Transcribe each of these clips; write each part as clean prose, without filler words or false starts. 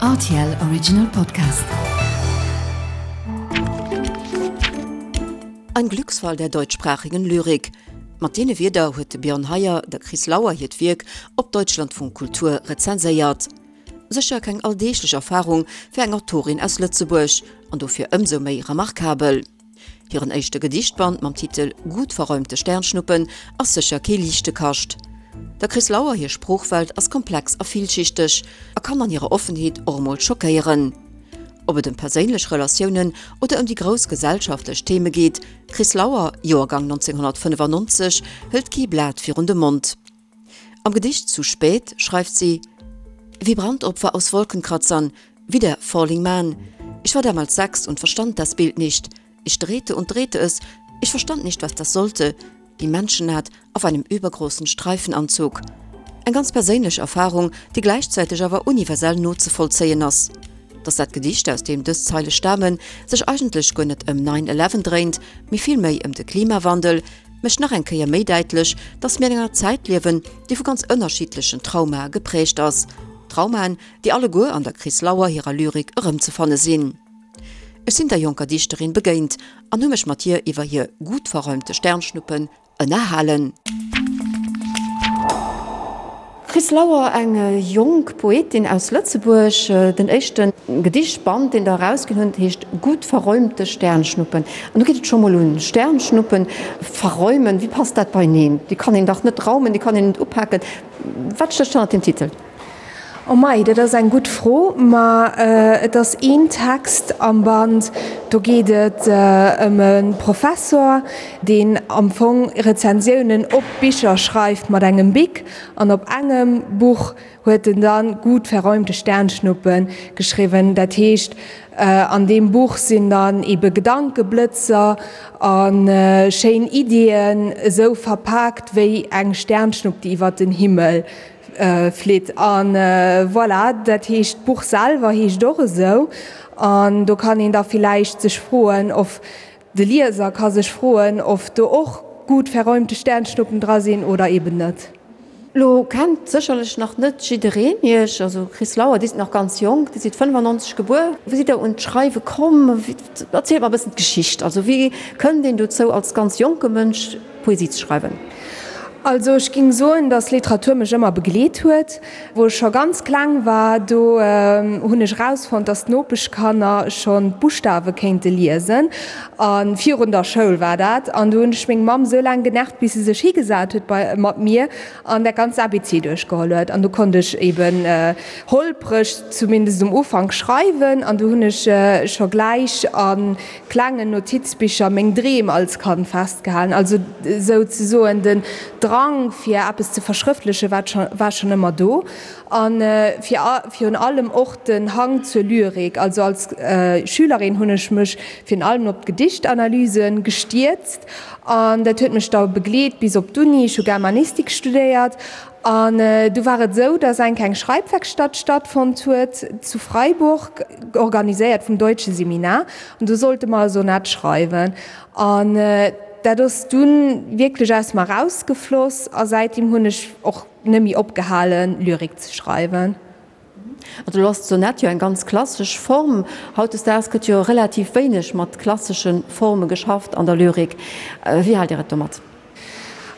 Rtl Original Podcast. Ein Glücksfall der deutschsprachigen Lyrik. Mat deene Wierder huet de Björn Heyer der Chris Lauer hiert Wierk op Deutschlandfunk Kultur rezenséiert. Sécher keng alldeeglech Erfarung fir eng Autorin aus Lëtzebuerg an dofir ëmsou méi remarkabel. Hiren éischte Gedichtband mam Titel Gut verräumte Sternschnuppen ass sécher kee liichte Kascht. Der Chris Lauer hir Sproochwelt ass komplex a villschichteg a kann an hirer Offenheet och emol schockéieren. Ob et ëm perséinlech Relatiounen oder ëm déi grouss gesellschaftlech Theme geet, d'Chris Lauer, Joergang 1995, hëlt kee Blat virun de Mond. Am Gedicht Zu spät schreift sie, Wie Brandopfer aus Wolkenkratzern, wie der Falling Man. Ich war damals sechs und verstand das Bild nicht. Ich drehte und drehte es, ich verstand nicht, was das sollte, die Menschennaht auf einem übergroßen Streifenanzug. Eng ganz perséinlech Erfarung, déi gläichzäiteg awer universell nozevollzéien ass. Dass dat Gedicht, aus deem dës Zeile stamen, sech eigentlech guer net ëm Nine Eleven dréint, mee villméi ëm de Klimawandel, mécht nach eng Kéier méi däitlech, dass mir an enger Zäit liewen, déi vu ganz ënnerschiddlechen Traumae gepräägt ass. Traumaen, déi alleguer an der Chris Lauer hirer Lyrik erëmzefanne sinn. Ech sinn der jonker Dichterin begéint an hu mech mat hir iwwer hir gut verräumte Sternschnuppen ënnerhalen. Chris Lauer, eng jonk Poetin aus Lëtzebuerg. Den éischte Gedichtband, deen Der erausginn hutt, heescht Gut verräumte Sternschnuppen. An do geet et scho mol un, Sternschnuppen verräumen, wéi passt dat beineen? Déi kann een dach net raumen, déi kann een net upaken. Wat stécht hannert deem Titel? Oh mei, dat ass eng gutt Fro. Ma et ass een Text am Band, do geet et ëm e Professor, deen am Fong Rezensiounen op Bicher schreift mat engem Bic. An op engem Buch huet en dann Gut verräumte Sternschnuppen geschriwwen. Dat heescht, an deem Buch sinn dann ebe Gedankeblëtzer a schéin Iddien esou verpaakt wéi eng Sternschnupp, déi iwwer den Himmel flitt. A voilà, dat heescht, d'Buch selwer heescht och esou. An do kann een da villäicht sech froen, of De Lieser ka sech froen, of do och gut verräumte Sternschnuppen dra sinn oder eben net. Lo kennt sécherlech nach net jiddereen Iech, also Chris Lauer, Dir sidd nach ganz jonk, Dir sidd 95 gebuer. Wéi sidd Der un d'Schreiwe komm? Erzielt mer e bëssen d'Geschicht. Also wéi kënnt een dozou als ganz jonke Mënsch Poesie ze schreiwen? Also ech ging soen, dass Literatur mech ëmmer begleet huet. Wou ech scho ganz kleng war, do hunn ech erausfonnt, dass d'Nopeschkanner schonn d'Buschtawe kéinte liesen. A virun der Schoul war dat. An du hunn ech meng Mamm sou laang genervt, bis se sech higesat huet bei mat mir an dat ganzt ABC duerchgeholl huet. An du konnt ech eben holpreg, zumindest um Ufank, schreiwen. An du hunn ech scho gläich a klengen Notizbicher meng Dreem als Kand festgehalen, also sou ze soen den Drang fir eppes ze verschrëftleche war schonn ëmmer do a virun allem och den Hang zur Lyrik. Also als Schülerin hunn ech mech virun allem op d'Gedichtanalyse gestierzt an dat huet mech da begleet bis op d'Uni. Ech hu Germanistik studéiert An du war et esou, dass eng kleng Schreibwerkstatt stattfonnt huet zu Freiburg, organiséiert vum Deutsche Seminar. An do sollte mer e Sonett schreiwen. An dat ass dunn wierklech aus mer erausgefloss. A säitdeem hunn ech och net méi opgehalen, Lyrik ze schreiwen. Also elo ass d'Sonett jo eng ganz klassesch Form. Hautdesdaags gëtt jo relativ wéineg mat klassesche Forme geschafft an der Lyrik. Wéi haalt Dir et domat?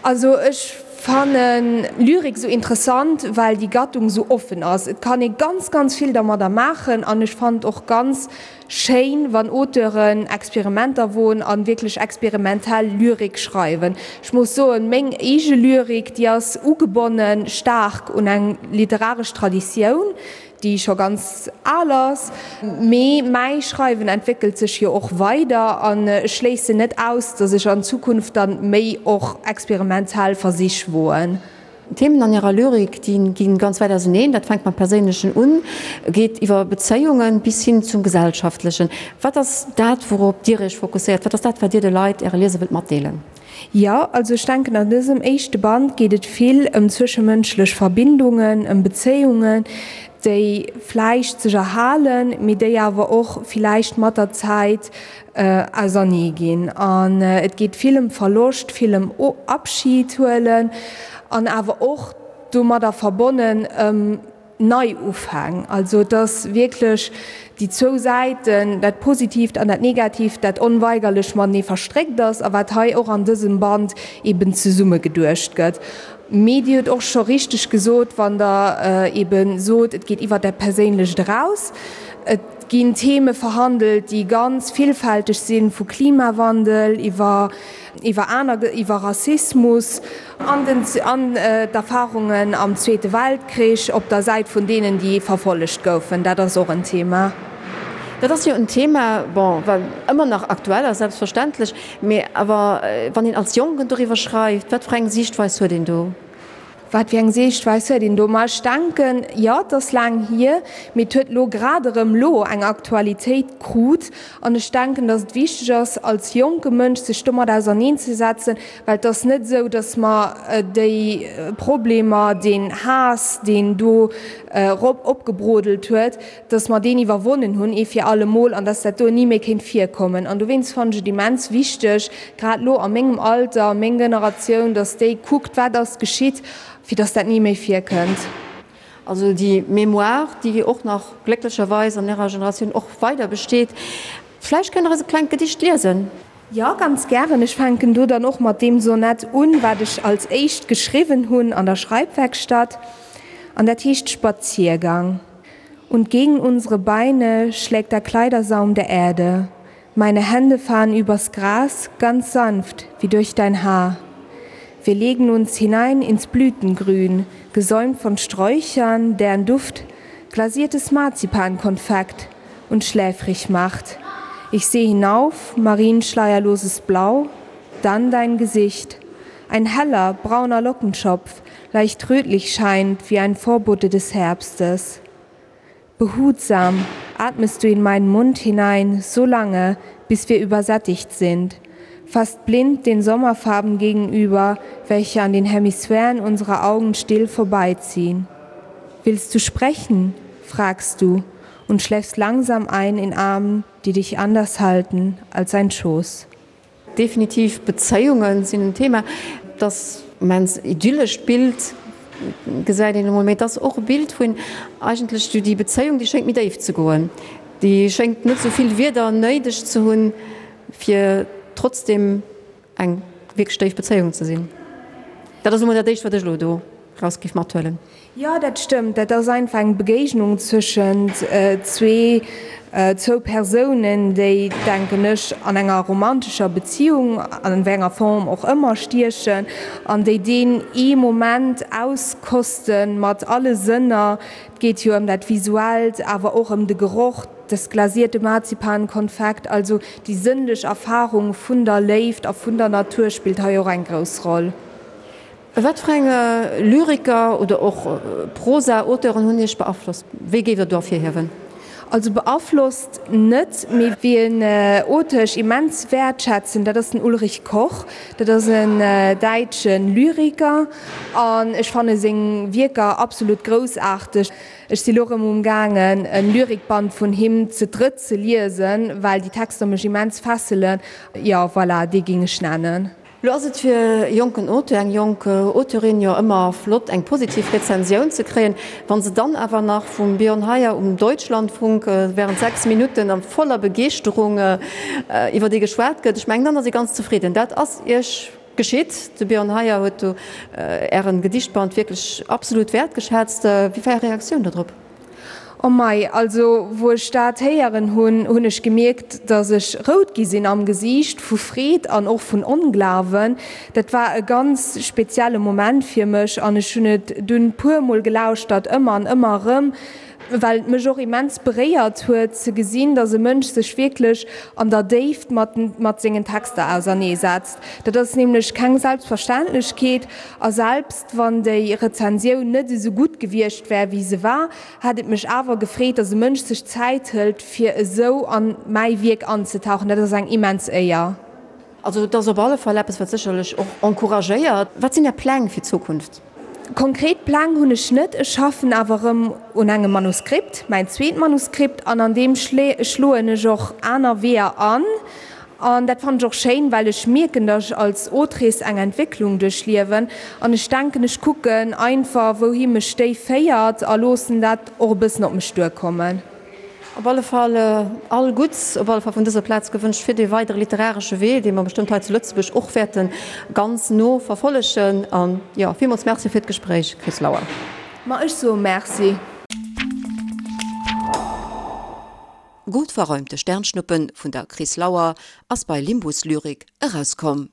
Also ech fannen Lyrik sou interessant, well déi Gattung sou offen ass. Et kann ee ganz, ganz vill dermadder maachen an ech fannen et och ganz schéin, wann Auteuren Experimenter woen an wierklech experimentell Lyrik schreiwen. Ech muss soen, meng eege Lyrik, déi ass ugebonnen staark un eng literaresch Traditioun, déi scho ganz al ass, mee mäi Schreiwen entwéckelt sech jo och weider an ech schléissen net aus, datt ech an Zukunft dann méi och experimentell Versich woen. D'Themen an hirer Lyrik, déi gi ganz wäit auseneen. Dat fänkt mam Perséinlechen un, geet iwwer Bezéiungen bis hin zum Gesellschaftlechen. Wat ass dat, wourop Dir Iech fokusséiert? Wat ass dat, wat Dir de Leit, Äre Lieser wëllt matdeelen? Jo, also ech denken an dësem éischte Band geet et vill ëm zwëschemënschlech Verbindungen, ëm Bezéiungen, déi vläicht sech erhalen, mee déi awer och villäicht mat der Zäit ausernee ginn. An et geet vill ëm Verloscht, vill ëm Abschid huelen an awer och domadder verbonnen ëm. Neiufäng. Also et ass wierklech déi zwou Säiten, dat Positiivt an dat Negatiivt, dat onweigerlech matenee verstréckt ass a wat hei och an dësem Band eben zesummegeduecht gëtt. Mee Dir hutt och scho richteg gesot, wann Der ebe sot, et geet iwwer dat Perséinlecht eraus. Et ginn Theme verhandelt, déi ganz villfälteg sinn, vu Klimawandel iwwer iwwer aner, iwwer Rassismus an den, an d'Erfahrungen am Zweete Weltkrich op der Säit vun deenen, déi verfollegt goufen. Dat ass och en Thema. Dat ass jo en Thema, bon, wat ëmmer nach aktuell ass, selbstverständlech. Mee awer wann een als Jonken doriwwer schreift, wat fir eng Siichtweis huet een do? Wat fir eng Siichtweis huet een do? Ma ech denken, jo, et ass laang hier, mee et huet elo grad erëm elo eng Aktualitéit krut. An ech denken, datt et wichteg ass, als jonke Mënsch sech domat auserneenzesetzen, well et ass net esou, datt mer déi Problemer, deen Haass, deen do erop opgebrodelt huet, datt mer deen iwwerwonnen hunn ee fir alle Mol an datt dat do ni méi kéint virkommen. An dowéinst fannen ech et immens wichteg, grad elo a mengem Alter, meng Generatioun, datt déi kuckt, wat ass geschitt, fir datt dat ni méi virkënnt. Also déi Mémoire, déi och nach glécklecherweis an Ärer Generatioun och weider besteet. Vläicht kënnt Der eis e klengt Gedicht liesen? Jo, ganz gären. Ech fänken do dann och mat deem Sonett un, wat ech als éischt geschriwwen hunn an der Schreibwerkstatt. An dat heescht Spaziergang. Und gegen unsere Beine schlägt der Kleidersaum der Erde. Meine Hände fahren übers Gras, ganz sanft wie durch dein Haar. Wir legen uns hinein ins Blütengrün, gesäumt von Sträuchern, deren Duft glasiertes Marzipankonfekt und schläfrig macht. Ich sehe hinauf, marienschleierloses Blau, dann dein Gesicht. Ein heller, brauner Lockenschopf, leicht rötlich scheint wie ein Vorbote des Herbstes. Behutsam atmest du in meinen Mund hinein so lange, bis wir übersättigt sind, fast blind den Sommerfarben gegenüber, welche an den Hemisphären unserer Augen still vorbeiziehen. Willst du sprechen? fragst du und schläfst langsam ein in Armen, die dich anders halten als ein Schoß. Definitiv, Bezéiunge sinn en Thema. Et ass immens idyllescht Bild, gesäit een emol, mee et ass och e Bild vun eigentlech déi Bezéiung, déi schéngt méi déif ze goen, déi schéngt net esou vill Wierder néideg ze hunn, fir trotzdem eng wierklech déif Bezéiung ze sinn. Dat ass emol dat éischt, wat ech elo do raus géif mathuelen. Jo, dat stëmmt. Dat ass einfach eng Begéignung zwëschent zwee, zwou Persounen, déi, denken ech, an enger romantescher Beziung, an wéi enger Form och ëmmer, stiechen an déi deen ee Moment auskoste mat alle Sënner. Et geet jo ëm dat Visuellt, awer och ëm de Geroch, das glasierte Marzipankonfekt. Also déi sënnlech Erfarung vun der Léift a vun der Natur spillt hei och eng grouss Roll. Wat fir eng Lyriker oder och Prosa-Auteuren hunn Iech beaflosst? Wéi géift Der do ervirhiewen? Also beaflosst net, mee wien Auteur ech immens wäertschätzen, dat ass den Ulrich Koch. Dat ass en däitsche Lyriker an ech fanne seng Wierker absolut groussaarteg. Ech si lo rëm um gaangen e Lyrikband vun him ze drëtt ze liesen, well déi Texter mech immens fesselen. Jo, voilà, dee géing ech nennen. Lo ass et fir e jonken Auteur, eng jonk Auteurin jo ëmmer flott, eng positiv Rezensioun ze kréien. Wa se dann awer nach vum Björn Heyer um Deutschlandfunk während 6 Minutten a voller Begeeschterung iwwer ee geschwat gëtt, ech mengen, dann ass ee ganz zefridden. Dat ass Iech geschitt. De Björn Heyer huet do Ären Gedichtband wierklech absolut wäertgeschätzt. Wéi war Är Reaktioun do drop? Oh mei, also wou ech dat héieren hunn, hunn ech gemierkt, dass ech rout gi sinn am Gesiicht, vu Freed an och vun Onglawen. Dat war e ganz spezielle Moment fir mech an ech hunn et dunn puer mol gelauschtert, ëmmer an ëmmer erëm, well et mech och immens beréiert huet ze gesinn, dass e Mënsch sech wierklech an der Déift mat mat sengen Texter auserneesetzt. Dat ass nämlech keng Selbstverständlechkeet a selbst. Wann déi Rezensioun net esou gutt gewiescht wär, wéi se war, hätt et mech awer gefreet, dass e Mënsch sech Zäit hëlt, fir esou an mäi Wierk anzetauchen. Dat ass eng immens Éier. Also et ass op alle Fall eppes, wat sécherlech och encouragéiert. Wat sinn Är Pläng fir d'Zukunft? Konkret Pläng hunn ech net. Ech schaffen awer erëm un engem Manuskript, mäin zweet Manuskript, an an deem schloen ech och aner Weeër an. An dat fannen ech och schéin, well ech mierken, datt ech als Autrice eng Entwécklung duerchliewen. An ech denken, ech kucken einfach, wouhi mech déi féiert a loossen dat och e bëssen op mech duerkommen. Op alle Fall all Gutts op alle Fall vun dëser Plaz gewënscht fir dee weidere literaresche Wee, dee mer bestëmmt hei zu Lëtzebuerg och wäerte ganz no verfollegen. An jo, villmools Merci fir d'Gespréich, Chris Lauer. Ma ech soe Merci. Gut verräumte Sternschnuppen vun der Chris Lauer ass bei Limbus Lyrik erauskomm.